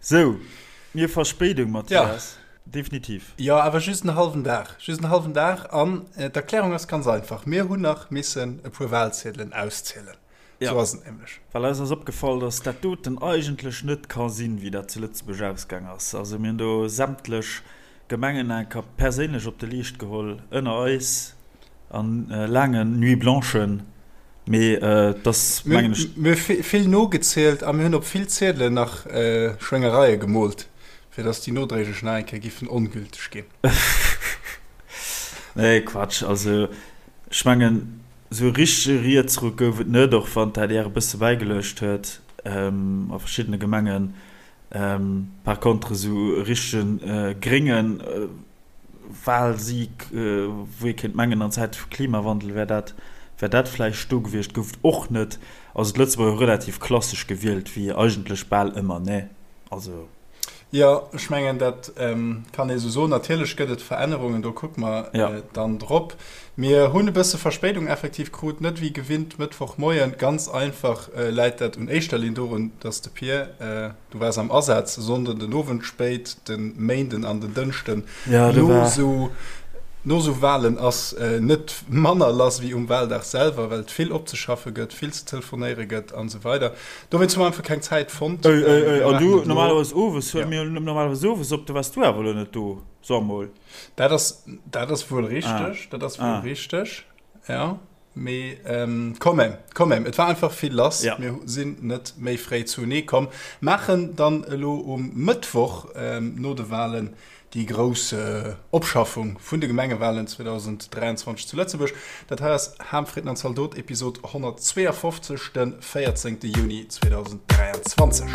Sou, mir Verspéidung, Mathias. Definitiv. Jo, awer just en hallwen Dag. Just en hallwen Dag. An d'Erklärung ass ganz einfach, Mir hunn nach missen e puer Wahlziedelen auszielen. Sou ass et nämlech. Well eis ass opgefall, dass dat doten eigentlech net ka sinn, wéi dat zu Lëtzebuerg ausgaang ass. Also mir hunn do sämtlech Gemengen enker perséinlech op de Leescht geholl, ënner eis, a laangen Nuits blanchen. Mee et ass, mengen ech. Mir hu vill nogezielt a mir hunn op vill Ziedelen nach Schwéngereie gemoolt, fir dass déi nodréiglech nach eng Kéier giffen ongülteg ginn. Nee, Quatsch. Also ech mengen, Esou e richtege Rietsruck gouf et net, och wann d'ADR e bësse bäigeluecht huet a verschiddene Gemengen. Par contre esou e richtege grénge Wahlsieg, wou ee kéint mengen an Zäite vu Klimawandel wär dat wär dat vläicht do gewiescht, gouf et och net. Also d'Lëtzebuerger hu relativ klassesch gewielt, wéi eigentlech bal ëmmer, ne? Also. Jo, ech mengen, dat kann ee sou soen. Natierlech gëtt et Verännerungen, do kucke mer dann drop. Mir hunn e bësse Verspéidung effektiv krut, net wéi gewinnt Mëttwochmoien. Ganz einfach läit dat un éischter Linn dorun, dass de Pir, du waars am Asaz, e Sonnden den Owend spéit, de Méinden an den Dënschden no sou no sou Walen ass net manner lass wéi um Waldag selwer, well et vill opzeschaffe gëtt, vill ze telefonéiere gëtt an esou weider. Dowéinst hu mer einfach keng Zäit fonnt. Ey, ey, ey, an du, normalerweis owes, huele mir normalerweis owes op, do waars du awer elo net do, so emol. Dat ass, dat ass wuel richteg, dat ass wuel richteg, ja. Mee quand même, quand même, et war einfach vill lass. Mir sinn net méi fréi zunee komm. Maachen dann elo um Mëttwoch no de Walen déi grouss Opschaffung vun de Gemengewalen 2023 zu Lëtzebuerg. Dat hei ass Ham, Fritten an Zaldot, Episod 152, de 14 Juni 2023.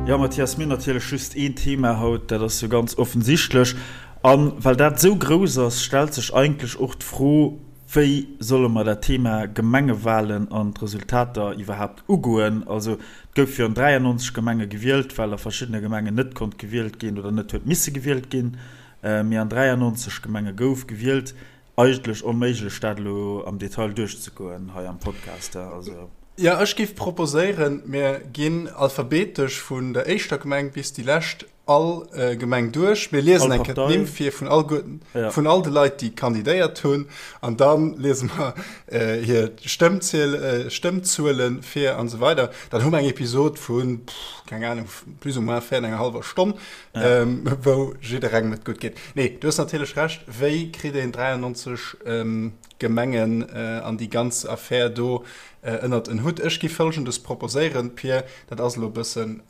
Jo Mathias, mir hunn natierlech just een Thema haut, dat ass jo ganz offensichtlech. A well dat esou grouss ass, stellt sech eigentlech och d'Fro, Wéi solle mer dat Thema Gemengewalen an d'Resultater iwwerhaapt ugoen? Also, et gouf jo an 93 Gemenge gewielt, well a verschiddene Gemengen net konnt gewielt ginn oder net huet misse gewielt ginn. Mee an 93 Gemenge gouf gewielt. Eigentlech onméiglech, dat elo am Detail duerchzegoen hei am Podcast. Also. Jo, ech géif proposéieren, mir ginn alphabetesch vun der éischter Gemeng bis déi lescht all Gemeng duerch. Mir liesen eng Kéier d'Nimm vir vun all vun all de Leit, déi kandidéiert hunn, an da liese mer hir Stëmmziel, Stëmmzuele vir an esou weider. Dann hu mer eng Episod vun, keng Anung, plus ou moins véier an enger hallwer Stonn, wou jidderengem et gutt geet. Nee, du hues natierlech Recht, wéi kritt een 93 Gemengen an déi ganz Affär do ënnert en Hutt. Ech gi Folgendes proposéieren, Pir, dat ass elo e bëssen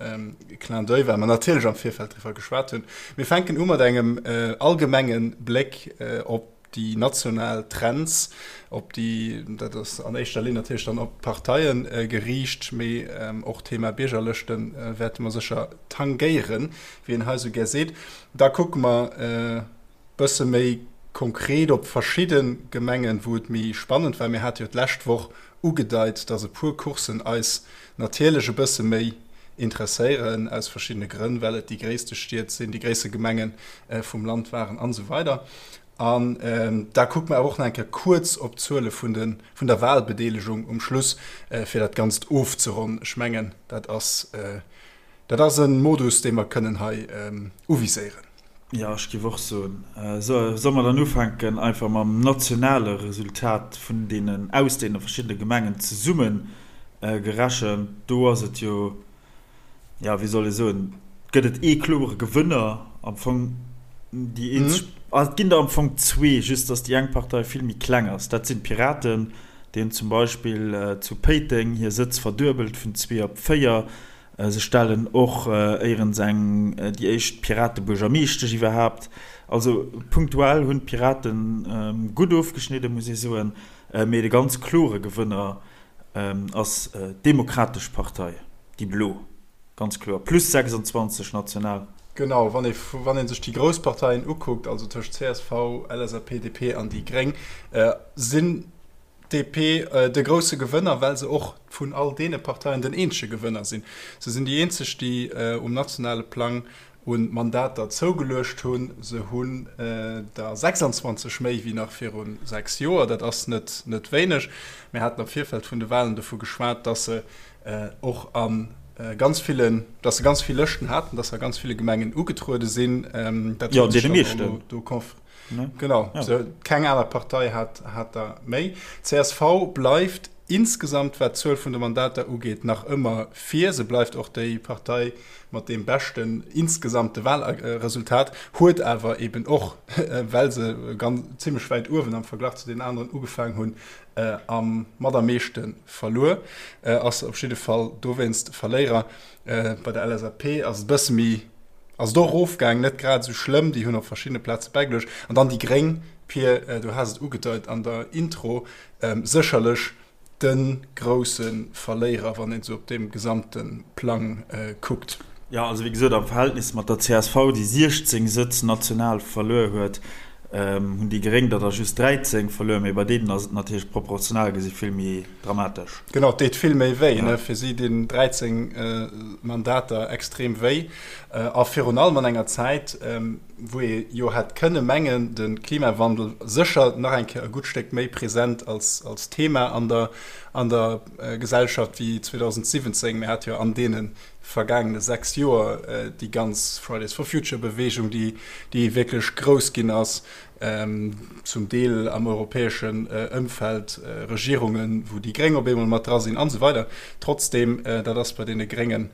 Clin d'oeil, well mer natierlech am Virfeld driwwer geschwat hunn. Mir fänken u mat engem allgemenge Bléck op déi national Trends, op déi, dat ass an éischter Linn natierlech dann op d'Parteie geriicht, mee och d'Thema Biergerlëschte wäerte mer sécher tangéieren, wéi een hei esou gär seet. Da kucke mer, Bësse méi konkret op verschidde Gemengen, wou et méi spannend war. Mir hate jo d'lescht Woch ugedeit, dass e puer Courssen eis natierlech e bësse méi interesséieren, aus verschiddene Grënn, well et déi gréisste Stied sinn, déi gréisste Gemenge vum Land waren an esou weider. An da kucke mer awer och nach eng Kéier kuerz op d'Zuele vun de, vun der Wahlbedeelegung um Schluss, fir dat Ganzt ofzeronnen. Ech mengen, dat ass, dat ass e Modus, dee mer kënnen hei uviséieren. Jo, ech géif och soen. Solle mer dann ufänken einfach mam nationale Resultat vun deenen, aus deene verschiddene Gemengen zesumme gerechent? Do ass et jo, jo, wéi soll ee soen, gëtt et ee klore Gewënner am Fong. Déi eenzeg, ah, et ginn der am Fong zwee, just datt déi eng Partei vill méi kleng ass. Dat sinn d'Piraten, déi hunn zum Beispill zu Péiteng hir Sëtz verduebelt vun zwee op véier. Se stellen och éierens eng, déi éischt Piratebuergermeeschtesch iwwerhaapt. Also punktuell hunn d'Pirate gutt ofgeschnidden, muss ee soen. Mee de ganz klore Gewënner ass d'Demokratesch Partei, déi Blo, ganz kloer, plus 26 national. Genau, wann ee wann ee sech déi grouss Parteien ukuckt, also tëscht csv, LSAP, DP an déi Gréng, sinn DP de grousse Gewënner, well se och vun all deene Parteien den eenzege Gewënner sinn. Se sinn déi eenzeg, déi um nationale Plang. Un Mandater zougeluecht hunn. Se hunn der 26 méi wéi nach viru 6 Joer. Dat ass net net wéineg. Mir haten am Virfeld vun de Wahlen dovu geschwat, dass se och a ganz villen, dass se ganz vill Lëschten haten, dass se a ganz ville Gemengen ugetruede sinn. Dat huet sech dann och elo do konf. Genau, keng aner Partei hat hat der méi. Csv bleift Insgesamt, wat d'Zuel vun de Mandater ugeet, nach ëmmer vir. Se bleift och déi Partei mat deem beschten insgesamte Wahlresultat, huet awer eben och, well se ganz zimmlech wäit uewen am Verglach zu den aneren ugefaangen hunn, am mat am meeschte verluer. Ass op jidde Fall dowéinst Verléierer. Bei der LSAP ass et e bësse méi, ass et och erofgaangen, net grad esou schlëmm, déi hunn op verschiddene Plaze bäigeluecht. An dann déi Gréng, Pir, du has et ugedeit an der Intro, Sécherlech de grousse Verléierer, wann een esou op deem gesamte Plang kuckt. Jo, also wéi gesot, am Verhältnis mat der csv, déi 16 Sëtz national verluer huet, hunn déi Gréng der der just 13 verluer. Mee bei deenen ass et natierlech proportional gesi vill méi dramatesch. Genau, et deet vill méi wéi. Fir si dinn 13 Mandater extrem wéi. A virun allem an enger Zäit, wou ee jo hätt kënne mengen, de Klimawandel sécher nach eng Kéier e gutt Stéck méi present als, als Thema an der, an der Gesellschaft wéi 2017. Mir hate jo an deene vergaangene 6 Joer déi ganz Fridays for Future Bewegung, déi, déi wierklech grouss ginn ass, zum Deel am europäeschen Ëmfeld, Regierungen, wou déi Gréng op eemol mat dra sinn an esou weider. Trotzdeem, dat ass bei deene Gréngen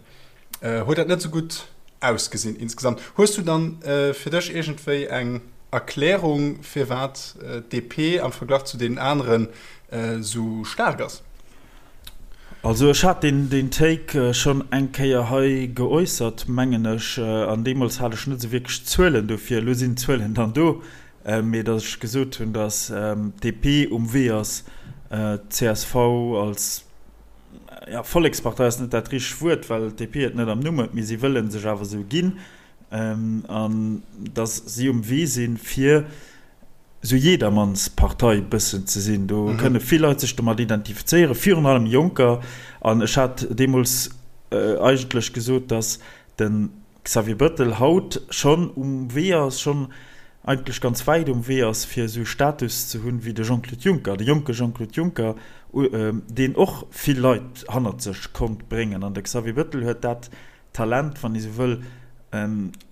Huet dat net sou gutt ausgesinn insgesamt. Hues du dann fir dech iergendwéi eng Erklärung firwat d'DP am Verglach zu deenen aneren sou staark ass? Also ech hat deen Take schonn eng Kéier hei geäussert, mengen ech, an deemools hat ech net esou wierklech Zuelen dofir. Elo sinn d'Zuelen dann do, mee datt ech gesot hunn, datt d'DP um Wee ass, d'CSV als ja, Vollekspartei ass net dat richtegt Wuert, well d'DP et net am Numm huet, mee si wëlle sech awer esou ginn, an datt si um Wee sinn, fir esou Jedermannspartei bëssen ze sinn. Do kënne vill Leit sech domat identifizéieren, virun allem Jonker. An ech hat deemools eigentlech gesot, datt de Xavier Bettel haut schonn um Wee ass, schonn eigentlech ganz wäit um Wee ass, fir esou e Status ze hunn wéi de Jean-Claude Juncker, de jonke Jean-Claude Juncker, deen och vill Leit hannert sech konnt bréngen. An de Xavier Bettel huet dat Talent, wann ee sou wëll,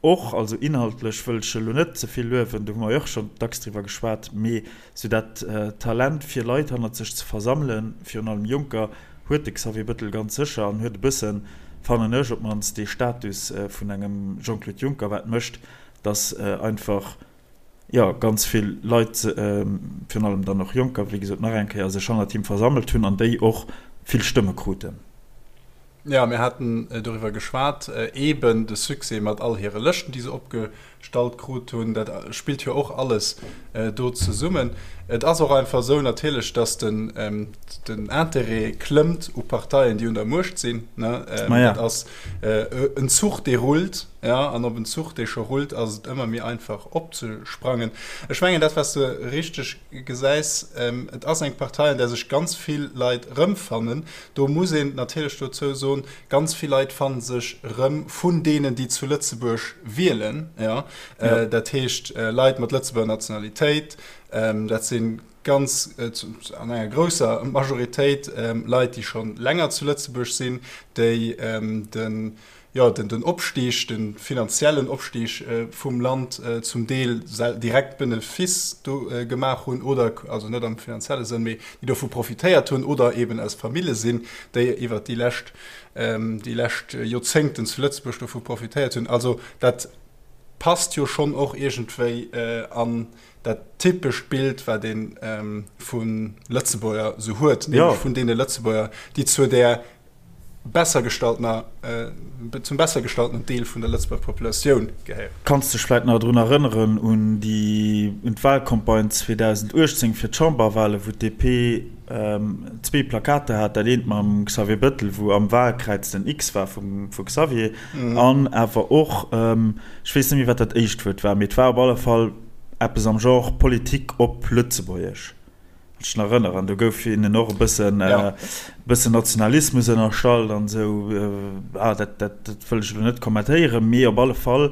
och, also inhaltlech wëll ech elo net ze vill luewen, do hu mer jo och schonn dacks driwwer geschwat, mee sou dat Talent fir Leit hannert sech ze versammelen, virun allem Jonker, huet de Xavier Bettel ganz sécher an huet e bëssen, fannen ech op d'mannst, dee Status vun engem Jean-Claude Juncker, wat mécht, datt einfach, jo, ganz vill Leit, virun allem dann och Jonker, wéi gesot nach eng Kéier, sech hannert him versammelt hunn an déi och vill Stëmme kruten. Jo, mir haten doriwwer geschwat, eeben de Succès mat all hire Lëschten, déi se opgestallt krut hunn, dat spillt jo och alles do zesummen. Et ass och einfach esou natierlech, datt den Interêt klëmmt u Parteien, déi un der Muecht sinn. Dat ass en Zuch, dee rullt, jo, an op en Zuch, dee scho rullt, ass et ëmmer méi einfach opzesprangen. Ech mengen, dat, wat s de richteg gesäis, et ass eng Partei, an där sech ganz vill Leit erëmfannen. Do muss een natierlech dozou soen, ganz vill Leit fanne sech erëm vun deenen, déi zu Lëtzebuerg wielen. Jo, dat heescht Leit mat Lëtzebuerger Nationalitéit, dat si ganz an enger grousser Majoritéit Leit, déi scho länger zu Lëtzebuerg sinn, déi den jo, den Opstig, de finanziellen Opstig vum Land zum Deel direkt Benefice do gemaach hunn oder, also net am finanzielle Sënn, mee déi dovu profitéiert hunn oder eben aus Famille sinn, déi iwwert déi lescht, déi lescht Joerzéngten zu Lëtzebuerg dovu profitéiert hunn. Also dat passt jo schonn och iergendwéi an dat typescht Bild, wat ee vu Lëtzebuerger esou huet, nämlech vun deene Lëtzebuerger, déi zu där besser gestalltener, zum besser gestalltenen Deel vun der Lëtzebuerger Populatioun gehéieren. Kanns dech vläit nach drun erënneren un déi, un d'Wahlcampagne 2018 fir d'Chamberwahlen, wou d'DP zwee Plakater hat, dat eent mam Xavier Bettel, wou am Wahlkräiz den X war vum vu Xavier, an awer och, ech weess net méi wat dat éischt Wuert war, mee et war op alle Fall eppes am Genre Politik op Lëtzebuergesch. Ech nach erënneren, do gouf hinnen och e bëssen, ja. bëssen Nationalismus ënnerstallt an esou. Ah, dat, dat, dat wëll ech elo net kommentéieren, mee op alle Fall.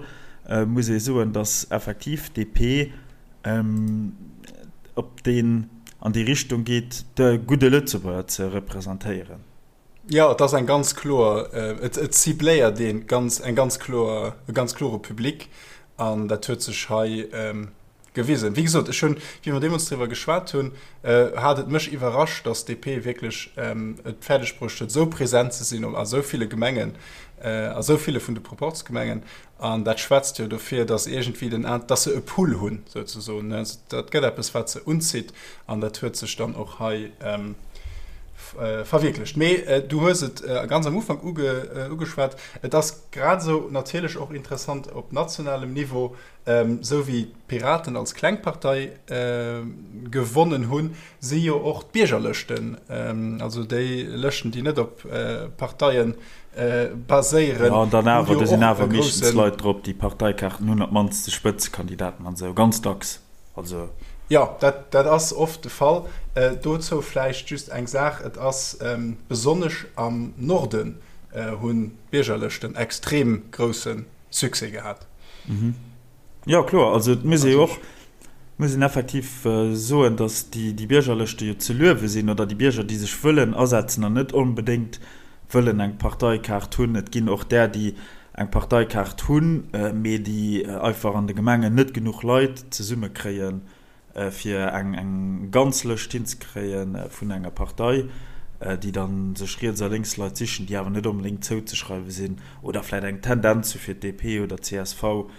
muss ee soen, datt effektiv d'DP op deen, an déi Richtung geet, de gudde Lëtzebuerger ze representéieren. Jo, et ass eng ganz kloer, et et cibléiert ee ganz, eng ganz kloer, e ganz klore Public an dat huet sech hei gewisen. Wéi gesot, ech hunn, wéi mer deemools driwwer geschwat hunn, hat et mech iwwerrascht, datt d'DP wierklech et fäerdeg bruecht huet, esou present ze sinn a sou ville Gemengen, a sou ville vun de Proporzgemengen. An dat schwätzt jo dofir, datt iergendwéi den, datt se e Pull hunn, souzesoen. Dat gëtt eppes, wat se unzitt. An dat huet sech dann och hei verwierklecht. Mee du hues et ganz am Ufank ugeschwat, et ass grad esou natierlech och interessant op nationalem Niveau, Esou wéi d'Piraten als kleng Partei gewonnen hunn, si jo och d'Biergerlëschten, also déi Lëschten, déi net op Parteie baséieren, Jo, an dann awer, do sinn awer meeschtens Leit drop, déi Parteikaarten hunn, op d'mannst de Spëtzekandidaten an esou, ganz dacks. Also. Jo, dat ass oft de Fall. Dozou vläicht just eng Saach, Et ass besonnesch am Norden hunn d'Biergerlëschten extrem grousse Succès gehat. Mhm. Jo, kloer. Also et muss ee jo och, muss een effektiv soen, datt déi, déi Biergerlëschte jo ze luewe sinn oder déi Bierger, déi sech wëllen asetzen an net onbedéngt wëllen eng Parteikaart hunn. Et ginn och där, déi eng Parteikaart hunn, mee déi einfach an de Gemengen net genuch Leit zesummekréien, fir eng ganz Lëscht hinzekréie vun enger Partei, déi da sech riets a lénks Leit sichen, déi awer net onbedéngt zouzeschreiwe sinn oder vläicht eng Tendenz hu fir d'DP oder d'CSV.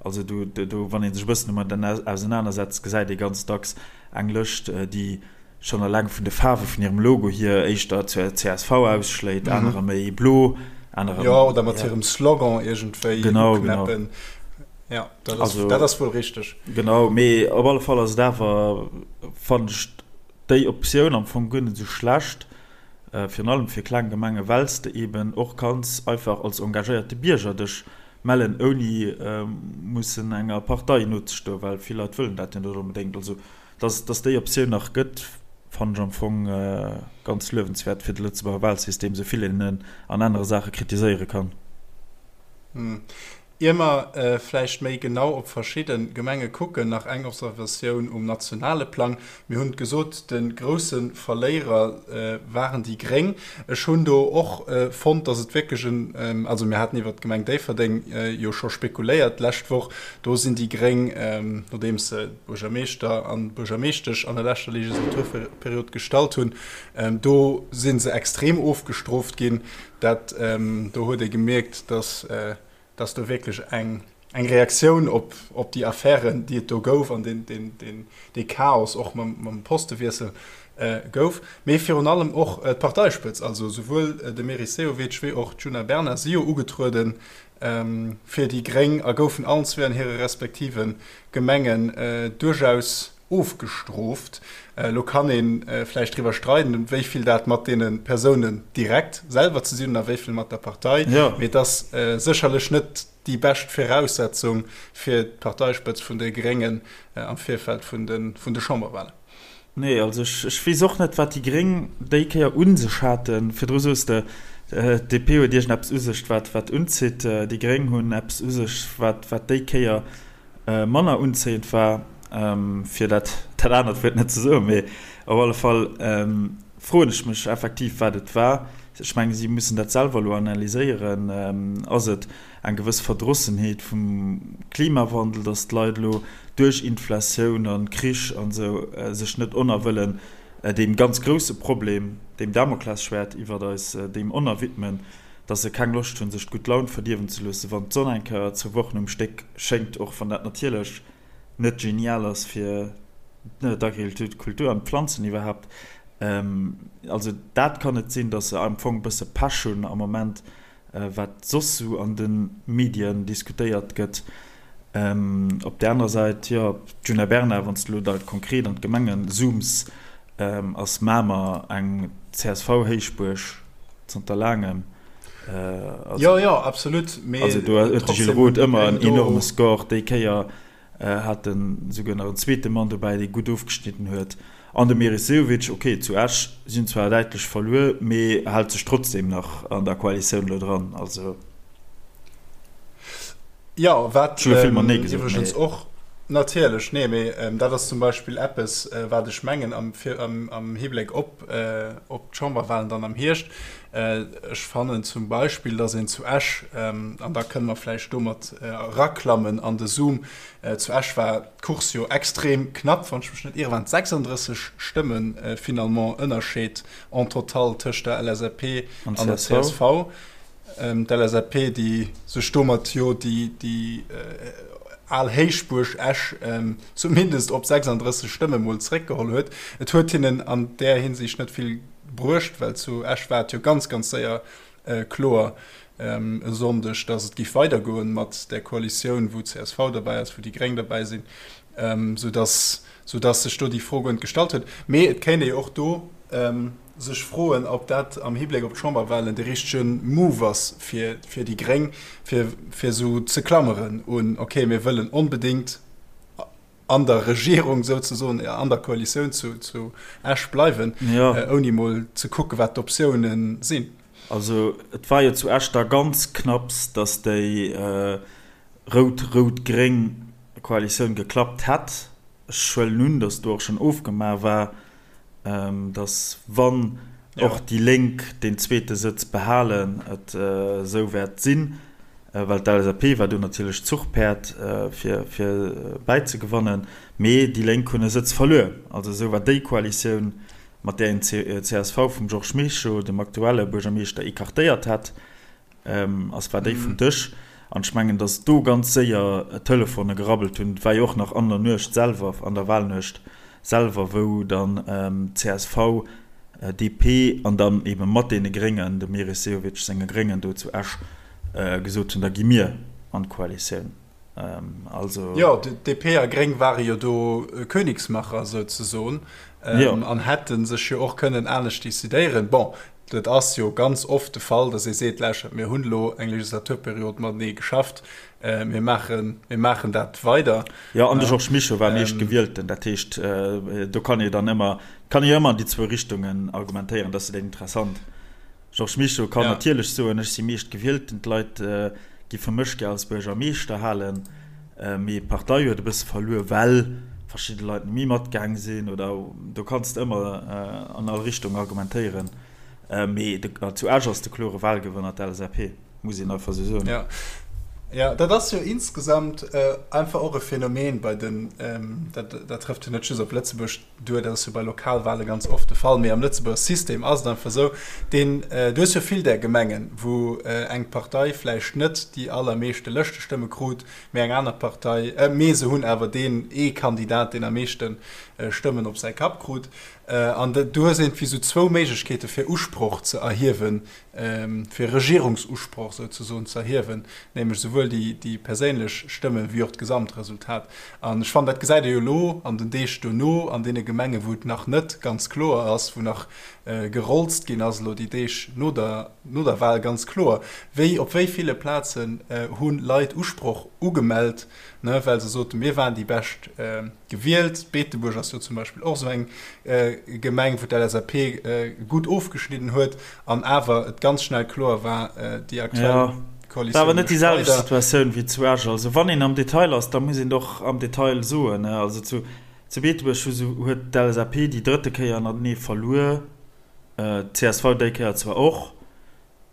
Also do, wann ee sech e bëssen domat ausenanersetzt, gesäit ee ganz dacks eng Lëscht, déi schonn eleng vun de Faarwe vun hirem Logo hier éischter zur csv ausschléit, anerer méi blo, anerer. Jo, oder mat hirem Slogan iergendwéi uknäppen. Ja, dat ass, also, dat ass wuel richteg. Genau, mee op alle Fall ass et awer, fannen ech déi Optioun am Fong guer net esou schlecht, äh, virun allem fir kleng Gemenge, well s de eben och kanns einfach als engagéierte Bierger dech mellen, ouni äh, mussen enger Partei nozestoen, well vill Leit wëllen dat jo net onbedéngt. Also, dass, dass déi Optioun nach gëtt, fannen ech am Fong äh, ganz luewenswäert fir de Lëtzebuerger Wahlsystem, esou vill een en an anere Saache kritiséiere kann. Hm. Ier mer vläicht méi genau op verschidde Gemenge kucken, nach eng Observatioun um nationale Plang. Mir hunn et gesot, de grousse Verléierer waren déi Gréng. Ech hunn do och fonnt, datt et wierklech en, also mir haten iwwert d'Gemeng Déifferdeng jo scho spekuléiert d'lescht Woch, do sinn déi Gréng, nodeems se Buergermeeschter an Buergermeeschtesch an der leschter Legislaturperiod gestallt hunn, do si se extrem ofgestrooft ginn. Dat, do huet ee gemierkt, datt dass do wierklech eng eng Reaktioun op op déi Affären, déi et do gouf an deen deen deen dee Chaos och mam mam Postewiessel gouf, mee virun allem och d'Parteispëtz, also souwuel de Meris Sehovic wéi och d'Djuna Bernard si jo ugetruede fir déi Gréng a goufen allen zwee an hire respektive Gemengen duerchaus ofgestrooft. Elo kann ee vläicht driwwer streiden, wéi vill dat mat deene Persounen direkt selwer ze sinn hunn a wéi vill mat der Partei. Mee et ass sécherlech net déi bescht Viraussetzung fir d'Parteispëtz vun de Gréngen am Virfeld vun de Chamberwahlen. Nee, also ech weess och net, wat déi Gréng déi Kéier u sech haten. Virdru sous de, d'DP huet iergendeppes u sech, wat unzitt. Déi Gréng hunn eppes u sech, wat déi Kéier manner unzéiend war, fir dat dat anert Wuert net ze soen, mee op alle Fall froen ech mech effektiv, wat et war. Ech mengen, si mussen dat selwer elo analyséieren. Ass et eng gewëss Verdrossenheet vum Klimawandel, datt d'Leit elo duerch Inflatioun a Krich an esou sech net onerwëllen deem ganz grousse Problem, deem Damoklesschwäert iwwert eis, deem onerwidmen? dass se keng Loscht hunn, sech d'gutt Laun verdierwen ze loossen, wann d'Sonn eng Kéier zwou Wochen um Stéck schéngt, och wann dat natierlech net genial ass fir d'Agrikultur an d'Planzen iwwerhaapt. Also dat kann et sinn, dass se am Fong e bësse Pech hunn am Moment, wat soss sou an de Medien diskutéiert gëtt. Op där anerer Säit, jo, d'Djuna Bernard, wann s de elo da konkret an d'Gemenge zooms, ass Mamer eng CSV-Héichbuerg zanter laangem. Also, jo, jo, absolut. Mee also do huet de Gilles Roth ëmmer en enorme Score. Déi Kéier hat en esouguer nach en zweete Mann dobäi, dee gutt ofgeschnidden huet. An de Meris Sehovic, ok, zu Esch sinn zwar däitlech verluer, mee hält sech trotzdeem nach an der Koalitioun elo dran. Also. Jo, wat iwwregens och natierlech, nee, mee dat ass zum Beispill eppes, wat ech mengen am, am Hibléck op, op d'Chamberwahlen dann am Hierscht. Ech fannen zum Beispill, datt een zu Esch, an da kënne mer vläicht domat eraklammen an de Zoom, zu Esch war d'Course jo extrem knapp, wann ech mech net iere waren et 36 Stëmme finalement Ënnerscheed en total tëscht der LSAP an der csv. D'LSAP, déi sech domat jo déi al Héichbuerg Esch zumindest op 36 Stëmme mol zeréckgeholl huet. Et huet hinnen an där Hinsicht net vill bruecht, well zu Esch war et jo ganz, ganz séier kloer e Sonndeg, datt et géif weidergoen mat där Koalitioun, wou csv derbäi ass, wou déi Gréng derbäi sinn, soudatt sech do déi Fro guer net gestallt huet. Mee et kéint ee jo och do sech froen, ob dat am Hibléck op d'Chamberwahlen de richtege Move ass fir déi Gréng, fir esou ze klammeren un, okay, mir wëllen onbedéngt an der Regierung souzesoen, an der Koalitioun zu Esch bleiwen, ouni mol ze kucken, wat d'Optiounen sinn. Also et war jo zu Esch da ganz knapps, datt déi rout-rout-gréng Koalitioun geklappt hätt. Ech huelen un, datt do och schonn ofgemaach war, datt wann och déi Lénk deen zweete Sëtz behalen, et esou wäert sinn, well d'LSAP war do natierlech d'Zuchpäerd fir bäizegewannen, mee déi Lénk hunn e Sëtz verluer. Also esou war déi Koalitioun, mat där een d'CSV vum Georges Mischo, dem aktuelle Buergermeeschter, écartéiert hat, Ass war déi vum Dësch. An ech mengen, datt do ganz séier d'Telefone gerabbelt hunn. Et war jo och nach an der Nuecht selwer, an der Wahlnuecht selwer, wou dann csv, DP an dann eebe mat deene Gréngen, dem Meris Sehovic senge Gréngen do zu Esch gesot hunn, da gi mir an d'Koalitioun. Also. Jo, DP a Gréng ware jo do Königsmacher souzesoen an hätte sech jo och kënnen anescht decidéieren. Bon, Et ass jo ganz oft de Fall, datt ee seet, Lauschtert, mir hunn elo eng Legislaturperiod matenee geschafft, mir maachen, mir maachen dat weider. Jo, an de Georges Mischo war Meeschtgewielten. Dat heescht, do kann ee dann ëmmer, kann ee jo ëmmer an déi zwou Richtungen argumentéieren. Dat ass jo dat Interessant. Georges Mischo kann natierlech soen, ech si Meeschtgewielten, d'Leit giffe mech gär als Buergermeeschter halen. Mee d'Partei huet e bësse verluer, well verschidde Leit net méi matgaang sinn. Oder do kanns de ëmmer an all Richtung argumentéieren. Mee zu Esch ass de klore Wahlgewënner d'LSAP, muss een einfach esou soen. Jo, jo, dat ass jo insgesamt einfach och e Phänomen bei den, dat trëfft jo net just op Lëtzebuerg duer, dat ass jo bei Lokalwahle ganz oft de Fall, mee am Lëtzebuerger System ass et einfach esou, deen, du hues jo vill där Gemengen, wou eng Partei vläicht net déi allermeeschte Lëschtestëmme krut, mee eng aner Partei, mee se hunn awer deen ee Kandidat, deen am meeschte Stëmmen op säi Kapp krut. An du hues iergendwéi esou zwou Méiglechkeete fir Usproch ze erhiewen, fir Regierungsusproch souzesoen ze erhiewen, nämlech souwuel déi perséinlech Stëmme wéi och d'Gesamtresultat. An ech fannen, dat gesäit ee jo elo an den Deeg dono an deene Gemengen, wou et nach net ganz kloer ass, wou nach gerolzt ginn ass elo déi Deeg no der, no der Wahl, ganz kloer, wéi op wéi ville Plazen hu Leit Usproch ugemellt, ne, well se soten, mir waren déi bescht Gewielt. Beetebuerg ass jo zum Beispill och esou eng Gemeng, wou d'LSAP gutt ofgeschnidden huet an awer et ganz schnell kloer war, déi aktuell Koalitioun. War awer net déi selwecht Situatioun wéi zu Esch. Also wann een am Detail ass, da muss een et och am Detail soen. Also zu Beetebuerg huet d'LSAP déi drëtte Kéier ënnertenee verluer, d'CSV déi Kéier zwar och.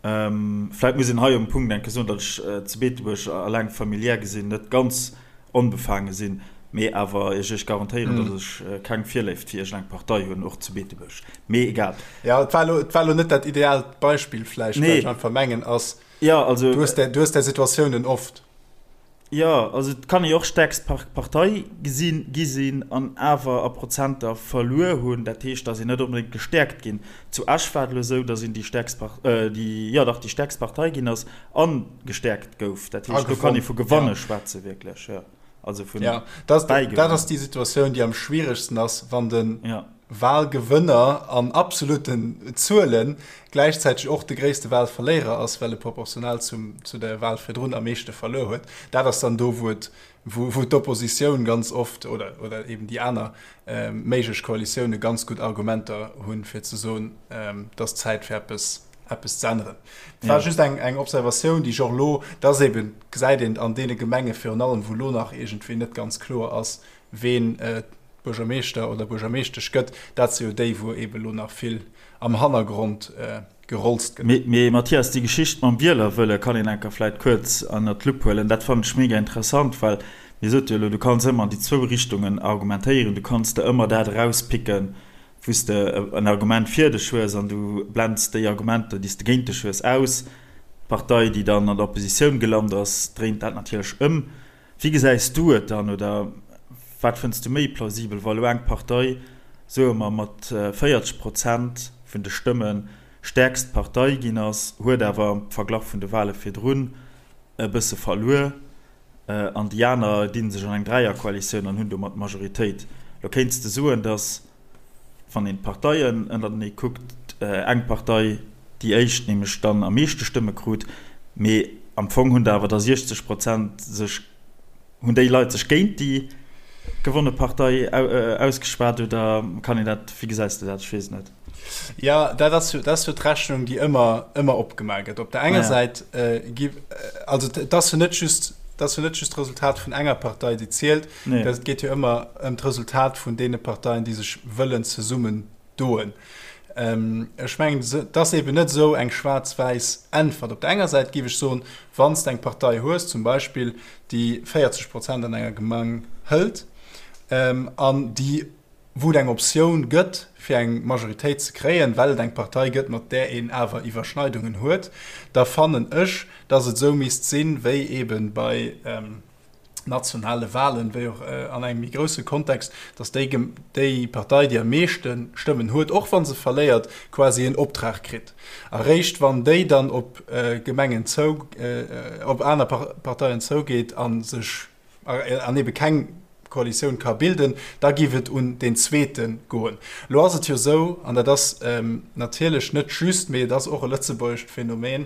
Vläit muss een hei um Punkt enke soen, datt ech zu Beetebuerg alleng familiär gesinn net ganz onbefaange sinn, mee awer iech iech garantéieren, datt ech keng Virléift fir iergendeng Partei hunn, och zu Beetebuerg. Mee egal. Jo, et war elo, et war elo net dat ideaalt Beispill vläicht, wat ech einfach mengen ass, Jo, also. Du hues där, du hues där Situatiounen oft. Jo, also et kann ee jo och stäerkst Partei gesinn, gi sinn an awer a Prozenter verluer hunn. Dat heescht, datt een net onbedéngt gestäerkt ginn. Zu Esch war et elo esou, datt een déi stäerkst déi, jo dach, déi stäerkst Partei ginn ass a gestäerkt gouf. Dat heescht, do kann ee vu Gewanne schwätze wierklech, jo. Also vun Bäigewannen. Dat ass déi Situatioun, déi am schwieregsten ass, wann de Wahlgewënner an absolutten Zuele gläichzäiteg och de gréisste Wahlverléierer ass, well e proportional zum, zu der Wahl virdrun am meeschte verluer huet. Dat ass dann do, wou et, wou, wou d'Oppositioun ganz oft oder, oder eben déi aner méiglech Koalitioune ganz gutt Argumenter hunn, fir ze soen, et ass Zäit fir eppes. eppes ze änneren. Et war just eng, eng Observatioun, déi ech och elo, dass eben, gesäit een an deene Gemenge virun allem, wou elo nach iergendwéi net ganz kloer ass, ween Buergermeeschter oder Buergermeeschtesch gëtt, dat si jo déi, wou eben elo nach vill am Hannergrond gerolzt gëtt. Mee Mathias, déi Geschicht mam Wielerwëlle kann een enker vläit kuerz ënnert d'Lupp huelen. Dat fannen ech mega interessant, well mir sot jo elo, du kanns ëmmer an déi zwou Richtungen argumentéieren. Du kanns der ëmmer dat erauspicken, wou s de en Argument fir dech hues an du blends déi Argumenter, déi s de géint dech hues, aus. D'Partei, déi dann an der Oppositioun gelant ass, dréint dat natierlech ëm. Wéi gesäis du et dann oder wat fënns du méi plausibel, wa lo eng Partei, soe mer, mat 40 Prozent vun de Stëmme stäerkst Partei ginn ass, huet awer am Verglach vun de Wale virdrun e bësse verluer an déi aner dinn sech an eng Dräierkoalitioun an hunn domat d'Majoritéit. Lo kéints de soen, datt wann een d'Parteien ënnertenee kuckt, eng Partei déi éischt nämlech dann am meeschte Stëmme krut, mee am Fong hunn der awer da 60 Prozent sech, hunn déi Leit sech géint déi gewonne Partei ausgeschwat oder kann een dat, wéi gesäis de dat? Ech weess et net. Jo, dat ass jo, dat ass jo d'Rechnung, déi ëmmer, ëmmer opgemaach gëtt. Op der enger Säit gi, also et ass jo net just, et ass jo net just d'Resultat vun enger Partei, déi zielt, Nee. Et geet jo ëmmer ëm d'Resultat vun deene Parteien, déi sech wëllen zesummen doen. Ähm, ech mengen, et ass eben net esou eng schwaarz-wäiss Äntwert. Op der enger Säit géif ech soen, wann s de eng Partei hues, zum Beispill, déi 40 Prozent an enger Gemeng hëlt ähm, an déi, wou et eng Optioun gëtt, fir eng Majoritéit ze kréien, well et eng Partei gëtt, mat där een awer Iwwerschneidungen huet, da fannen ech, datt et esou misst sinn, wéi eben bei, ähm, nationale Wahlen, wéi och an engem méi grousse Kontext, datt déi, déi Partei, déi am meeschte Stëmmen huet, och wa se verléiert, quasi en Optrag kritt. A réischt wann déi dann op Gemengen zou, op aner Parteien zougeet a sech, an ebe keng Koalitioun ka bilden, da géif et un deen zweete goen. Elo ass et jo esou, an dat ass natierlech net just, mee et ass och e lëtzebuergescht Phänomen,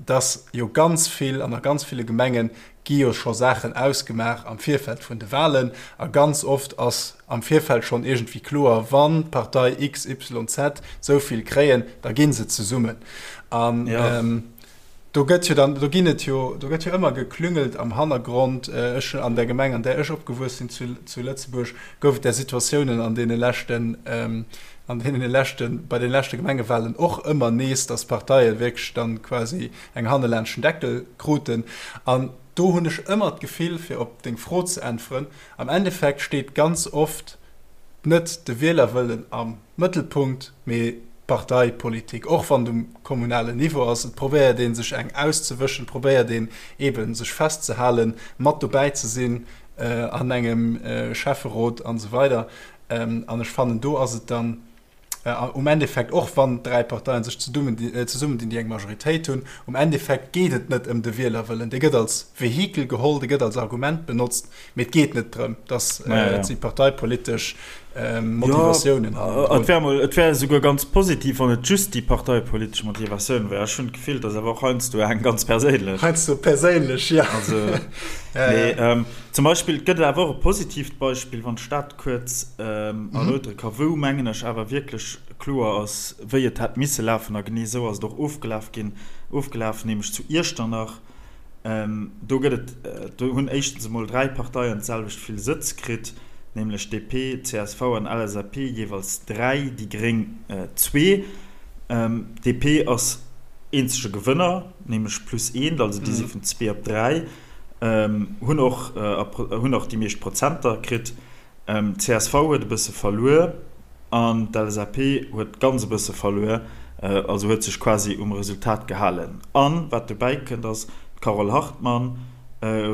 datt jo ganz vill, an a ganz ville Gemengen gi jo scho Saachen ausgemaach am Virfeld vun de Wahlen a ganz oft ass am Virfeld schonn iergendwéi kloer, wann d'Partei XYZ esou vill kréien, da gi se zesummen. An do gëtt jo dann, do ginn et jo, do gëtt jo ëmmer geklüngelt am Hannergrond. Ech, an der Gemeng, an där ech opgewuess sinn zu, zu Lëtzebuerg, gouf et där Situatiounen an deene leschten, an deene leschten, bei de leschte Gemengewahlen och ëmmer nees, datt Parteie wierklech dann quasi eng hannelaanscht den Deckel kruten. An do hunn ech ëmmer d'Gefill, fir op deng Fro ze äntweren, am Endeffekt steet ganz oft net de Wielerwëllen am Mëttelpunkt, mee d'Parteipolitik, och wann et um kommunalen Niveau ass. Et probéiert ee sech eng auszewëschen, et probéiert een eebe sech festzehalen, mat dobäi ze sinn an engem Schäfferot an esou weider. An ech fannen, do ass et dann, Um Endeffekt, och wann 3 Parteien sech zesummen dinn, déi eng Majoritéit hunn, um Endeffekt geet et net ëm de Wielerwëllen. Dee gëtt als Vehikel geholl, dee gëtt als Argument benotzt, mee et geet net drëm, dass et si parteipolitesch Motivatiounen hannendrun. Et wär emol, et wär esouguer ganz positiv, wann et just déi parteipolitesch Motivatioun wär. Ech hunn d'Gefill, et ass awer och heiansdo eng ganz perséinlech. Heiansdo perséinlech, jo. Also, mee zum Beispill, et gëtt awer och e positiivt Beispill, wann d'Stad kuerz erläutere ka, wou, mengen ech, awer wierklech kloer ass, wéi et hätt misse lafen, a genee esou ass et och ofgelaf ginn, ofgelaf, nämlech zu Iechternach. Do gëtt et, do hunn éischtens emol 3 Parteien d'selwecht vill Sëtz kritt, nämlech DP, csv an LSAP jeeweils 3, déi gréng zwee. DP ass eenzege Gewënner, nämlech plus eent, also déi si vun zwee op 3. Hunn och hunn och déi meescht Prozenter kritt. Csv huet e bësse verluer an d'LSAP huet ganz e bësse verluer, also huet sech quasi um Resultat gehalen. An wat dobäi kënnt ass, d'Carole Hartmann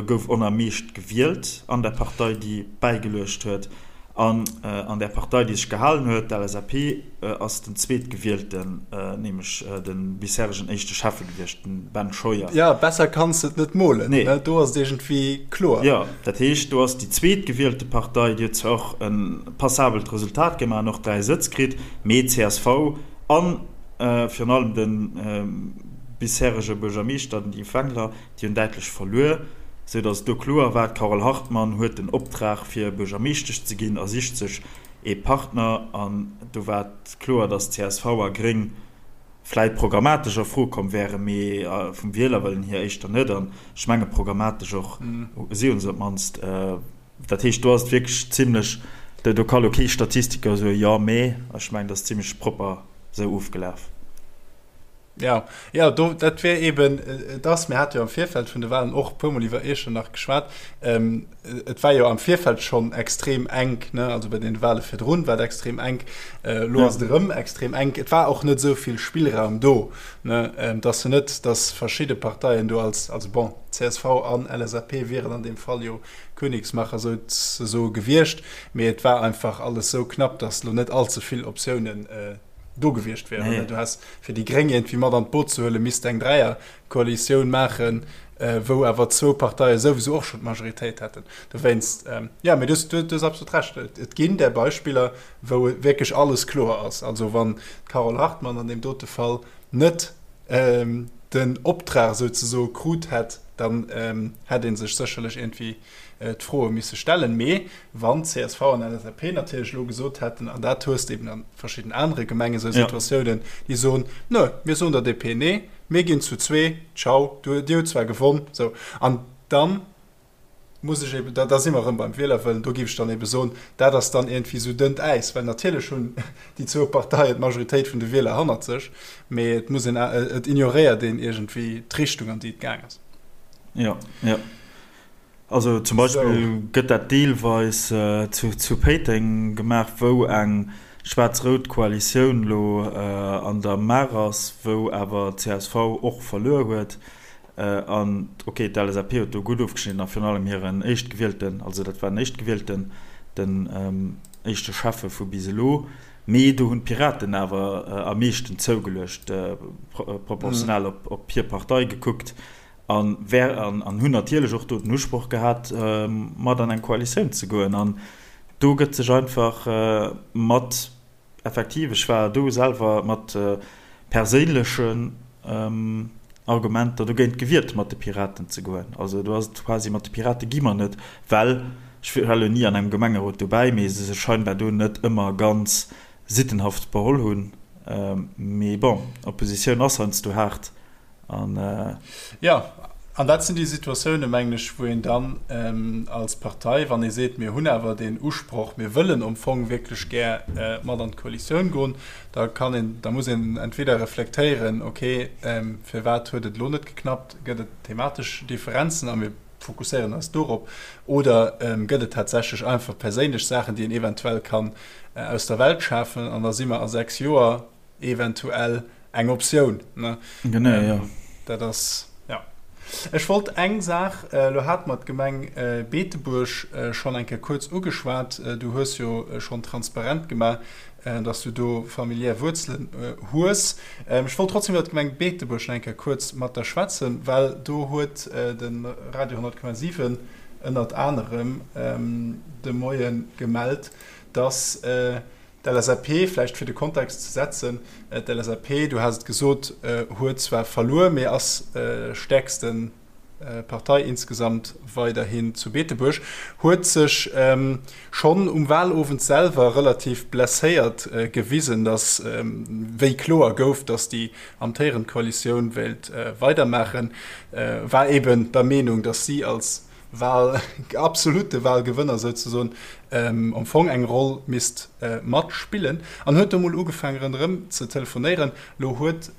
gouf on am meescht gewielt an der Partei déi bäigeluecht huet. An an där Partei, déi sech gehalen huet, d'LSAP, ass den Zweetgewielten, nämlech de bisheregen éischte Schäffe gewiescht, de Ben Scheuer. Jo, besser kanns de et net molen, ne? Do ass et iergendwéi kloer. Jo, dat heescht, do ass déi zweetgewielte Partei, déi huet zwar och e passabelt Resultat gemaach an och 3 Sëtz kritt, mee csv a virun allem de bisherege Buergermeeschter, den Yves Wengler, Déi hunn däitlech verluer, sou datt et do kloer war, d'Carole Hartmann huet den Optrag fir Buergermeeschtesch ze ginn a sicht sech ee Partner. An do war et kloer, datt csv a Gréng vläit programmatesch a Fro komm wären, mee vum Wielerwëllen hier éischter net. An ech menge programmatesch och, si hunn se op d'mannst. Dat heescht, do ass et wierklech zimlech, do ka lo kee Statistiker soen, jo, mee ech mengen, dat ass zimlech propper esou ofgelaf. Jo, jo, do, dat wär eeben et ass, mir hate jo am Virfeld vun de Wahlen och e puermol iwwer Iechternach geschwat, et war jo am Virfeld schonn extrem enk, ne, also bei deene Wahle virdrun war et extrem enk, elo ass et erëm extrem enk. Et war och net esou vill Spillraum do, ne, et ass jo net, datt verschidde Parteien do als, also bon, csv an LSAP wieren an deem Fall jo Königsmacher souzesoe gewiescht, mee et war einfach alles esou knapp, datt elo net allze vill Optiounen do gewiescht wären. Nee. Du häss fir déi Gréng iergendwéi mat an d'Boot ze huelen, misst eng Dräierkoalitioun maachen, wou awer zwou Parteie souwisou och schonn d'Majoritéit hätten. Dowéinst, jo, mee du hues absolut Recht, et ginn där Beispiller, wou wierklech alles kloer ass. Also wann d'Carole Hartmann an deem dote Fall net den Optrag souzesoe krut hätt, dann hätt ee sech sécherlech iergendwéi d'Froe misse stellen. Mee wann csv an LSAP natierlech elo gesot hätten, an dat hues de eben a verschidden anere Gemengen esou Situatiounen, déi soen, Nö, mir soen der DP Nee, mir ginn zu zwee, ciao, du, dir hutt zwar gewonn, sou. An dann muss ech eben, da si mer erëm beim Wielerwëllen, do géif ech dann ebe soen, dat ass dann iergendwéi esou dënnt Äis, well natierlech hunn déi zwou Parteien d'Majoritéit vun de Wieler hannert sech, mee et muss een, et ignoréiert een iergendwéi d'Richtung, an déi et gaang ass. Jo, jo. Also zum Beispill gëtt dat deelweis zu Péiteng gemaach, wou eng schwaarz-rout Koalitioun elo an der Maach ass, wou awer csv och verluer huet. An ok, d'LSAP huet do gutt ofgeschnidden a virun allem hiren Éischtgewielten, also dat war den Éischtgewielten, den éischte Schäffe vu bis elo. Mee do hunn d'Piraten awer am meeschten zougeluecht, proportional op hir Partei gekuckt. An wär, an hunn natierlech och do den Usproch gehat, mat an eng Koalitioun ze goen. An do gëtt sech einfach mat, effektiv, ech war do selwer, mat perséinlechen Argumenter dogéint gewiert, mat de Piraten ze goen. Also do ass et quasi, mat de Pirate gi mer net, well, ech war elo ni an engem Gemengerot dobäi, mee se sech scheinbar do net ëmmer ganz sittenhaft beholl hunn. Mee bon, Oppositioun ass heiansdo haart. An, Jo, an dat sinn déi Situatiounen, mengen ech, wou een dann als Partei, wann ee seet, mir hunn awer deen Usproch, mir wëllen am Fong wierklech gär mat an d'Koalitioun goen, da kann een, da muss een entweder reflektéieren, okay, firwat huet et elo net geknappt, gëtt et thematesch Differenzen a mir fokusséieren eis dorop, oder gëtt et tatsächlech einfach perséinlech Saachen, déi een eventuell kann aus der Welt schafen an da si mer a 6 Joer eventuell eng Optioun. Ne? Genau, ähm, ja. Dat ass, ja. Ech wollt eng Saach, äh, lo hat mer d'Gemeng äh, Beetebuerg äh, schonn eng Kéier kuerz ugeschwat. Äh, du hues jo äh, schonn transparent gemaach, äh, dass du do familiär Wuerzelen äh, hues. Ähm, ech wollt trotzdem iwwer d'Gemeng Beetebuerg nach eng Kéier kuerz mat der schwätzen, well do huet äh, de Radio 100,7 ënnert anerem ähm, de Moie gemellt, dass äh, D'LSAP, vläicht fir de Kontext ze setzen, d'LSAP, du has et gesot, huet zwar verluer, mee ass stäerkste Partei insgesamt weiderhin zu Beetebuerg, huet sech schonn um Wahlowend selwer relativ blesséiert gewisen, datt wéi kloer gouf, datt déi amtéierend Koalitioun wéilt weidermaachen, war eben der Meenung, datt si als Wahl, absolute Wahlgewënner souzesoen, am Fong eng Roll misst matspillen an huet do mol ugefaangen ronderëm ze telefonéieren. Lo huet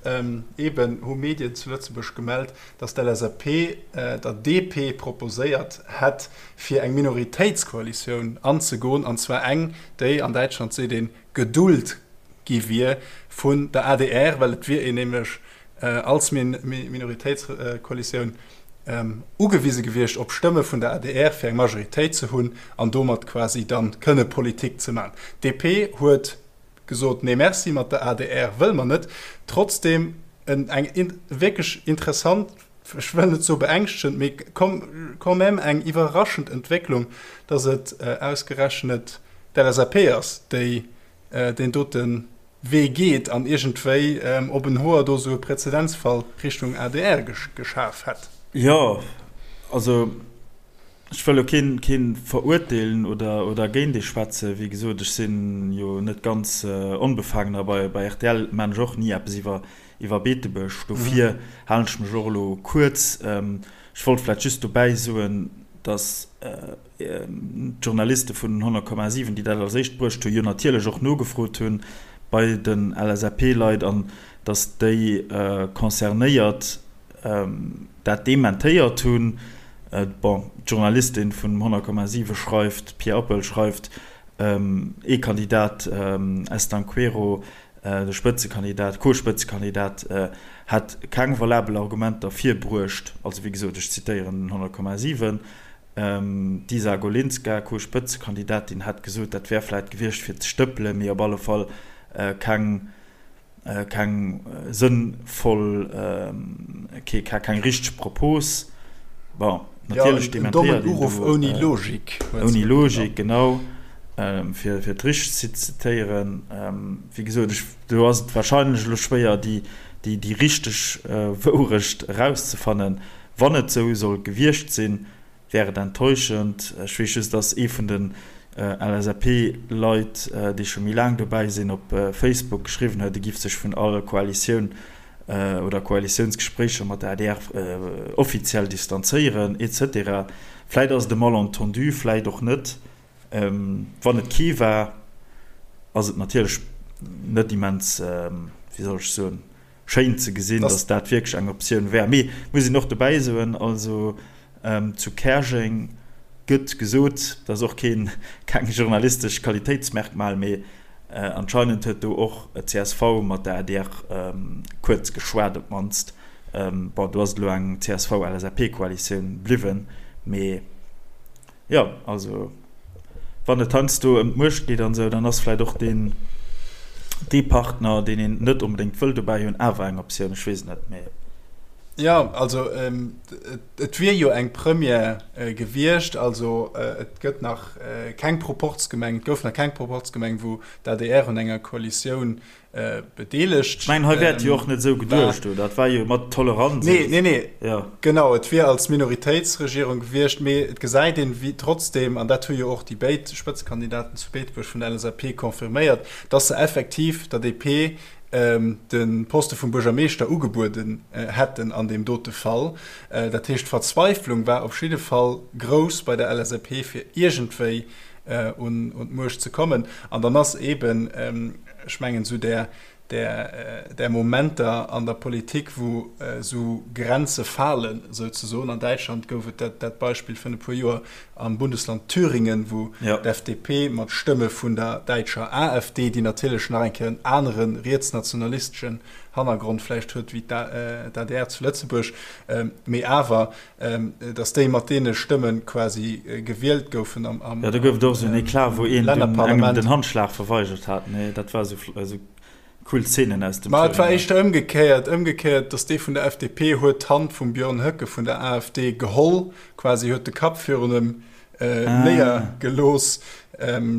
eben, hu Medien zu Lëtzebuerg gemellt, datt d'LSAP der DP proposéiert hätt, fir eng Minoritéitskoalitioun anzegoen, an zwar eng, déi, an Däitschland seet een, geduld gi wier vun der adr, well et wier een nämlech als Minoritéitskoalitioun ugewise gewiescht op Stëmme vun der adr fir eng Majoritéit ze hunn an domat quasi dann kënne Politik ze maachen. D'DP huet gesot, nee merci, mat der adr wëlle mer net. Trotzdem eng wierklech interessant, ech wëll net soe beängschtegend, mee quand même eng iwwerraschend Entwécklung, datt et ausgerechnet d'LSAP ass, déi deen dote Wee geet an iergendwéi op en Hoer do sou e Präzedenzfall Richtung adr geschaf hätt. Jo, also. Ech wëll elo keen, keen verurteelen oder, oder géint ee schwätzen. Wéi gesot, ech sinn jo net ganz onbefangen a bei, bei rtl maan ech och ni eppes iwwer, iwwer Beetebuerg. Dofir halen ech mech och elo kuerz. Ech wollt vläicht just dobäi soen, dass d'Journaliste vun 100,7, déi dat als éischt bruecht hunn, jo natierlech och nogefrot hunn bei den LSAP-Leit an dass déi Concernéiert dat dementéiert hunn. Bon, d'Journalistin vun 100,7 schreift, d'Pia Oppel schreift, ee Kandidat, Estanqueiro, de Spëtzekandidat, Co-Spëtzekandidat, hätt keng valabel Argumenter virbruecht, also wéi gesot, ech zitéieren den 100,7. D'Isa Golinska, Co-Spëtzekandidatin, hätt gesot, dat wär vläit gewiescht fir ze stëppelen, mee op alle Fall keng keng sënnvoll, keng richteg Propos. Bon, natierlech dementéiert een do. Uruff ouni Logik. Ouni Logik, genau, fir et richteg ze zitéieren. Wéi gesot, ech, do ass et warscheinlech elo schwéier, déi, déi richteg Wourecht erauszefannen. Wann et esou soll gewiescht sinn, wär et enttäuschend. Ech weess just, dass ee vun den LSAP-Leit, déi scho méi laang dobäi sinn, op Facebook geschriwwen huet, e giff sech vun all Koalitioun oder Koalitiounsgespréicher mat der adr offiziell distanzéieren, etc. Vläit ass et e Malentendu, vläit och net. Wann et kee war, ass et natierlech net immens, wéi soll ech soen, schéin ze gesinn, dass dat wierklech eng Optioun wär. Mee muss een och dobäi soen, also zu Käerjeng gëtt gesot, dat ass och keen, keng journalistesch Qualitéitsmerkmal, mee anscheinend huet do och csv mat der adr kuerz geschwat op d'mannst. Bon, do ass et elo eng CSV-LSAP-Koalitioun bliwwen, mee. Jo, also wann et heiansdo ëm d'Muecht geet an esou, dann ass vläicht och deen, dee Partner, deen een net onbedéngt wëll dobäi hunn, awer eng Optioun. Ech weess et net, mee. Jo, also et wier jo eng Première gewiescht. Also et gëtt nach keng Proporzgemeng, et gouf nach keng Proporzgemeng, wou d'ADR un enger Koalitioun bedeelegt. Ech mengen, hei wär et jo och net esou geduecht, oder? Dat war jo mat Toleranz. Nee, nee, nee. Ja. Genau, et wier als Minoritéitsregierung gewiescht, mee et gesäit een, wéi trotzdem, an dat hu jo och déi béid Spëtzekandidaten zu Beetebuerg vun der LSAP confirméiert, dass se effektiv der DP de Poste vum Buergermeeschter ugebueden hätten an deem dote Fall. Dat heescht, d'Verzweiflung war op jidde Fall grouss bei der LSAP, fir iergendwéi un d'Muecht ze kommen. An dann ass eeben, ech mengen, esou där, där, där Momenter an der Politik, wou esou Grenze falen, souzesoen. An Däitschland gouf et dat, dat Beispill vun e puer Joer am Bundesland Thüringen, wou d'FDP mat Stëmme vun der däitscher AfD, déi natierlech nach eng Kéier en anere rietsnationalisteschen Hannergrond vläicht huet wéi d'ADR zu Lëtzebuerg, mee awer, dass déi mat deene Stëmme quasi gewielt goufen am Lännerparlament. Jo, do gouf et och esou en Eclat, wou een dunn engem den Handschlag verweigert hat. Nee, dat war esou cool Szenen aus dem Ma et war éischter ëmgekéiert, ëmgekéiert, dass dee vun der FDP huet d'Hand vum Björn Höcke vun der AfD geholl, quasi huet de Kapp virun em néiergelooss.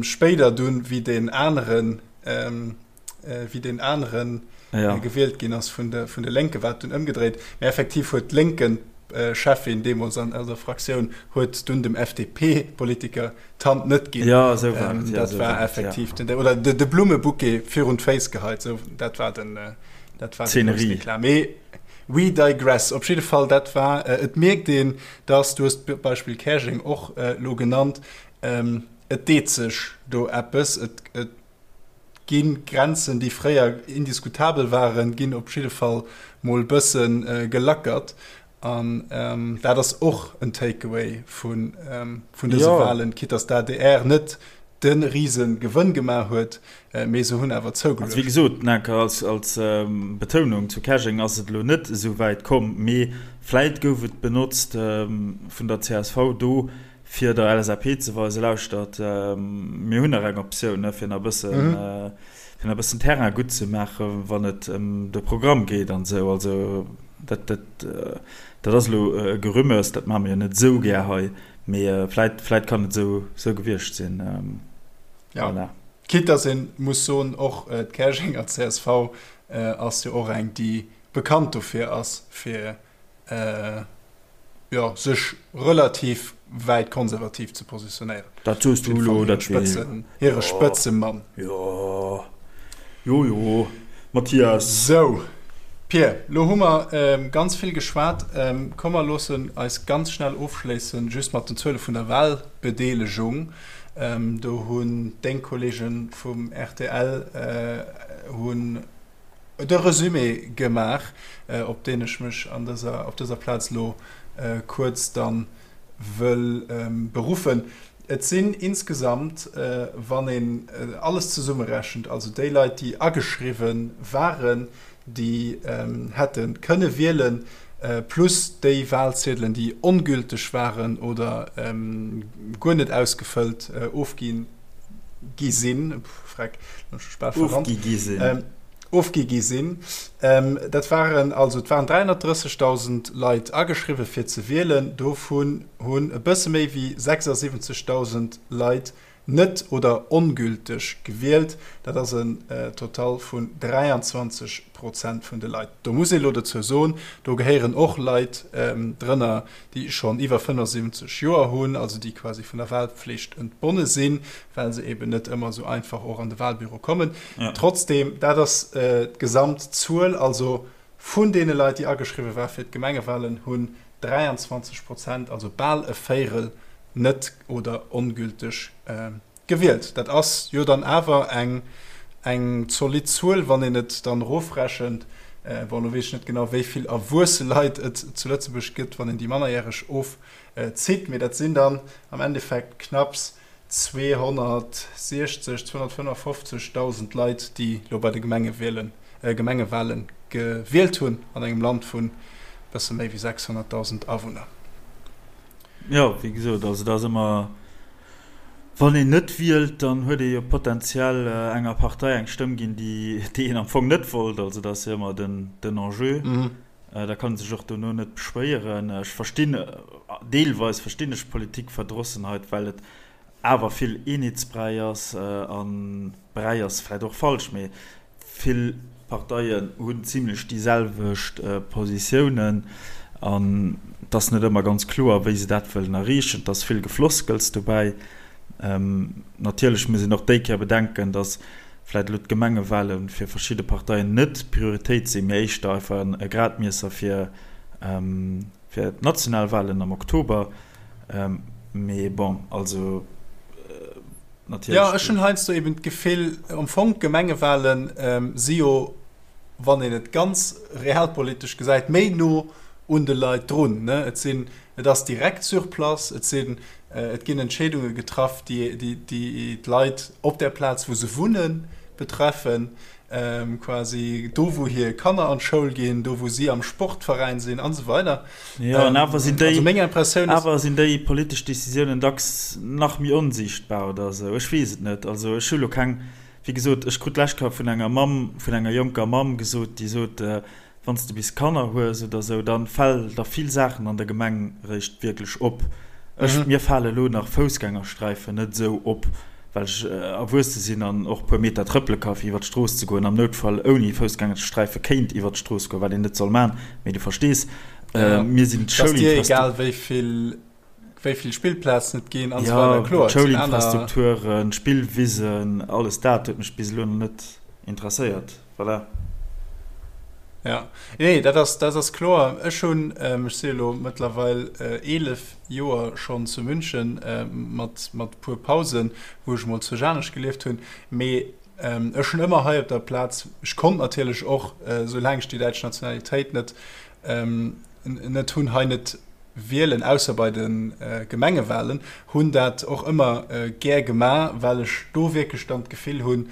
Spéider dunn, wéi deen aneren, wéi deen aneren ja. gewielt ginn ass vun de, vun de Lénke, war et dunn ëmgedréit. Mä effektiv huet d'Lénken-Cheffin deemools an der Fraktioun huet dunn dem FDP-Politiker d'Hand net ginn. Ja, esou war et. Ja, dat war war effektiv ja. den, oder de, de Blummebouquet virun d'Féiss geheit. Sou, dat war den, dat war den groussen Eklat. Mee we digress. Op jidde Fall, dat war, et mierkt een, dass, du hues d'Beispill Käerjeng och elo genannt, et deet sech do eppes. Et, et Ginn d'Grenzen, déi fréier indiskutabel waren, ginn op jidde Fall mol bësse gelackert. An dat ass och en Takeaway vun dëse Walen, quitte dass d'ADR net de rise Gewënn gemaach huet, mee se hunn awer zougeluecht. Also wéi gesot, Nanker, als Betounung, zu Käerjeng ass et elo net esou wäit komm, mee vläit gouf et benotzt vun der csv do, fir der LSAP ze weisen, lauschtert, mir hunn nach eng Optioun, ne, fir nach e bëssen, fir nach e bëssen Terrain gutt ze maachen, wann et ëm de Programm geet an esou. Also dat, dat, dat ass elo e Gerümmes, dat maache mir jo net esou gär hei, mee vläit, vläit kann et esou, esou gewiescht sinn. Ja. Voilà. Quitte dass ee muss soen, och d'Käerjenger csv ass jo och eng, déi bekannt dofir ass, fir. Jo, sech relativ wäit konservativ ze positionéieren. Dat soos du elo, dat wee. Hire Spëtzemann. Jo, jo, jo, Mathias. Sou, Pir, lo hu mer ganz vill geschwat. Komm mer loossen eis ganz schnell ofschléissen, just mat den Zuele vun der Wahlbedeelegung. Do hunn deng Kollege vum rtl hunn de Resumé gemaach, op deen ech mech an dëser, op dëser Plaz elo kuerz dann wëll beruffen. Et sinn insgesamt, wann een alles zesummerechent, also déi Leit, déi ageschriwwen waren, déi hätte kënne wielen, plus déi Wahlziedelen, déi ongülteg waren oder guer net ausgefëllt ofginn, gi sinn, freck, ofgi gi sinn, ofgi gi sinn. Dat waren also, et waren 330.000 Leit ageschriwwe fir ze wielen, dovun hunn e bësse méi wéi 76.000 Leit net oder ongülteg gewielt. Dat ass en Total vun 23 Prozent vun de Leit. Do muss ee elo dozou soen, do gehéieren och Leit drënner, déi schonn iwwer 75 Joer hunn, also déi quasi vun der Wahlpflicht entbonne sinn, well se eben net ëmmer esou einfach och an de Wahlbüro kommen. Ja. Trotzdem, dat ass d'Gesamtzuel. Also vun deene Leit, déi ageschriwwe war fir d'Gemengewahlen, hunn 23 Prozent, also bal e Véirel, net oder ongülteg Gewielt. Dat ass jo dann awer eng eng zolidd Zuel, wann een et dann erofrechent. Bon, elo weess ech net genau, wéi vill erwuesse Leit et zu Lëtzebuerg gëtt, wann een déi Mannerjäreg ofzitt, mee dat sinn dann am Endeffekt knapps 260, 255.000 Leit, déi elo bei de Gemengewielen, Gemengewale gewielt hunn an engem Land vun e bësse méi wéi 600.000 Awunner. Jo, wéi gesot, also dat ass ëmmer, wann een net wielt, dann huet ee jo potenziell enger Partei eng Stëmm ginn, déi déi een am Fong net wollt. Also dat ass jo ëmmer den den Enjeu. Da kann ee sech och dono net beschwéieren. Ech verstinn, deelweis verstinn ech Politikverdrossenheit, well et awer vill Eenheetsbräi ass an Bräi ass vläicht och falsch, mee Vill Parteien hunn zimlech déi selwecht Positiounen an et ass net ëmmer ganz kloer, wéi se dat wëllen erreechen. Et ass vill Gefloskels dobäi. Natierlech muss een och déi Kéier bedenken, datt vläicht elo d'Gemengewale fir verschidde Parteien net d'Prioritéit sinn, mee éischter einfach e Gradmiesser fir d'national Walen am Oktober. Mee bon, also. Natierlech. Jo, ech hunn heiansdo eben d'Gefill, am Fong d'Gemengewahlen si jo, wann een et ganz realpolitesch gesäit, méi no un de Leit drun. Ne? Et sinn, et ass direkt sur place, et sinn, et ginn Entscheedunge getraff, déi, déi, déi d'Leit op der Plaz, wou se wunnen, betreffen. Quasi do wou hir Kanner an d'Schoul ginn, do wou si am Sportveräin sinn an esou weider. Jo, an awer sinn déi, also meng Impressioun ass, awer sinn déi politesch Decisiounen dacks nach méi onsiichtbar oder esou. Ech weess et net. Also ech hu lo keng, wéi gesot, ech krut d'lescht Kéier vun enger Mamm, vun enger jonker Mamm gesot, déi sot, Wann s de bis Kanner hues oder esou, dann fäll der vill Saachen an der Gemeng réischt wierklech op. Ech, mir fale lo nach Foussgängersträifen net esou op, well ech erwuesse sinn an och puer Meter trëppele ka fir iwwer d'Strooss ze goen, am Noutfall ouni Foussgängersträife kéint iwwer d'Strooss goen, wat een net soll man, mee du verstees. Mir sinn d'Schoulinfrastruktur. Wéi vill Spillplazen et ginn an esou weider. Kloer, et sinn aner. D'Schoulinfrastrukturen, d'Spillwisen, alles dat huet mech bis elo nach net interesséiert. Voilà. Ja, nee, dat ass, dat ass kloer. Ech hunn, ech si elo mëttlerweil 11 Joer schonn zu München, mat, mat e puer Pausen, wou ech emol zu Janesch gelieft hunn, mee ech hunn ëmmer hei op der Plaz, ech konnt natierlech och, soulaang ech déi däitsch Nationalitéit net, net hunn, hei net wielen, ausser bei de Gemengewahlen, hunn dat och ëmmer gär gemaach, well ech do wierklech dann d'Gefill hunn,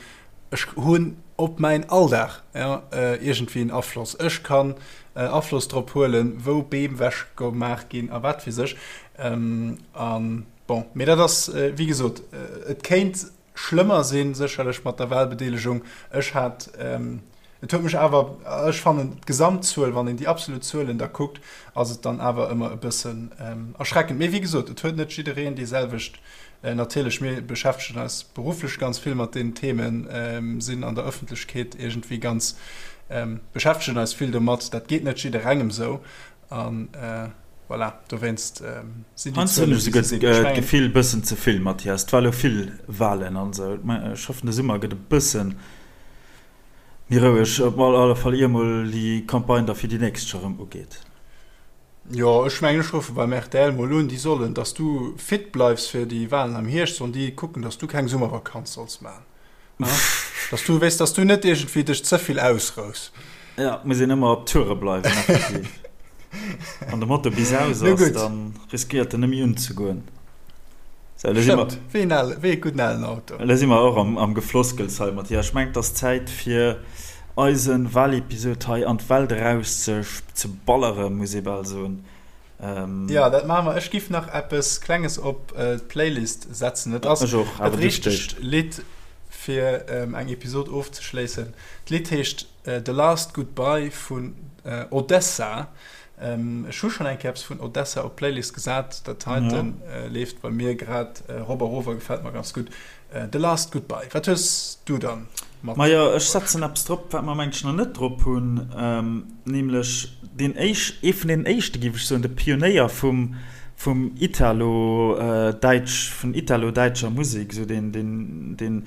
ech hunn op mäin Alldag iergendwéi en Afloss. Ech kann Afloss drop huelen, wou Beem wechgemaach ginn a wat weess ech. A bon, mee dat ass, wéi gesot, et kéint schlëmmer sinn, sécherlech mat der Wahlbedeelegung. Ech hat, et huet mech awer, ech fannen d'Gesamtzuel, wann een déi absolut Zuelen da kuckt, ass et dann awer ëmmer e bëssen erschreckend. Mee wéi gesot, et huet net jiddereen déi selwecht, natierlech, mir beschäftegen eis berufflech ganz vill mat deenen Themen, sinn an der Ëffentlechkeet iergendwéi ganz, beschäftegen eis vill domat. Dat geet net jidderengem esou an. Voilà, dowéinst sinn déi Zuelen, wéi se sinn. Ech mengen. D'Gefill bëssen ze vill, Mathias. Et war elo vill Walen an esou. Ech hoffen, de Summer gëtt e bëssen méi roueg. Op alle Fall ier mol déi Campagne da fir déi nächst scho rëm ugeet. Jo, ech mengen, ech ruffe beim rtl mol un, déi sollen, dass du fit bleifs fir déi Walen am Hierscht, sollen déi kucken, dass du keng Summervakanz solls maachen. Dass du, weess, dass du net iergendwéi dech ze vill ausrous. Ja, et muss een ëmmer op Toure bleiwen, effektiv. Wann de Motor bis aus ass, dann riskéiert en net méi unzegoen. Sou, elo si mer. Stëmmt, wéi en ale, wéi e gudden alen Auto. Elo si mer och am, am Gefloskels hei, Mathias. Ech mengen, et ass Zäit fir eise Walepisod hei an d'Welt eraus ze, ze balleren, muss ee bal soen. Jo, dat maache mer. Ech giff nach eppes Klenges op d'Playlist setzen. Et ass dat richtegt Lidd fir eng Episod ofzeschléissen. D'Lidd heescht The Last Goodbye vun Odesza. Ech hu schonn eng Kéier eppes vun Odesza op d'Playlist gesat. Dat heite leeft bei mir grad erop a rof a gefält mer ganz gutt. The Last Goodbye. Wat hues du dann mat? Majo, ech setzen eppes drop, wat mer mengen ech nach net drop hunn, nämlech deen éisch, ee vun deenen éischte géif ech soen, de Pionéier vum, vum Italo-däitsch, vun italo-däitscher Musek, esou deen, deen, deen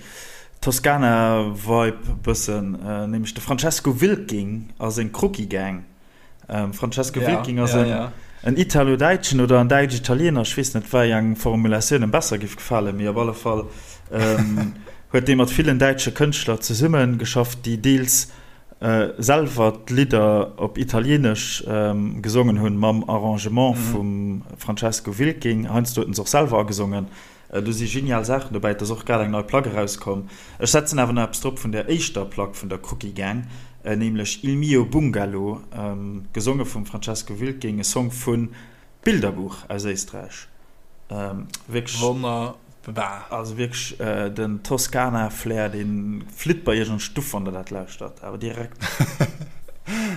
Toscana-Vibe bëssen, nämlech de Francesco Wilking a seng Crookie Gang. Francesco Wilking ass en Italo-Däitschen oder en Däitsch-Italiener, ech weess net, wei eng Formulatioun em besser géif gefalen, mee op alle Fall huet dee mat villen däitsche Kënschtler zesumme geschafft, déi deels selwer d'Lidder op Italieenesch gesongen hunn, mam Arrangement vum Francesco Wilking. Heiansdo huet en se och selwer agesongen. Do si genial Saachen dobäi. Et ass och grad eng nei Plack erauskomm. Ech setzen awer nach eppes drop vun der éischter Plack vun der Cookie Gang, nämlech Il mio bungalow, gesonge vum Francesco Wilking, e Song vu Bilderbuch aus Éisträich. Wierklech. Wonnerbar. Also wierklech den Toskana-Flair, dee flitt bei iech an d'Stuff, wann der dat lauschtert, awer direkt.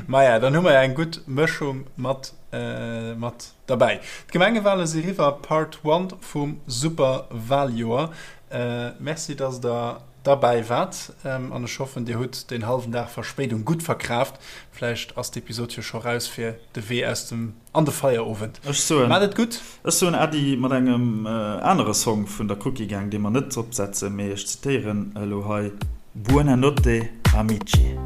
Maja, dann hu mer ja eng gutt Mëschung mat mat. Derbäi. D'Gemengewale si riwwer, Part One vum Superwaljoer. Merci dass der derbäi waart an ech hoffen dir hutt deen hallwen Dag Verspéidung gutt verkraaft. Vläicht ass d'Episod jo scho raus fir de Wee aus dem an de Feierowend. Ech soen Maat et gutt! Ech soen Äddi mat engem anere Song vun der Cookie Gang, dee mer net dropsetzen, mee ech zitéieren elo hei, Buona notte amici.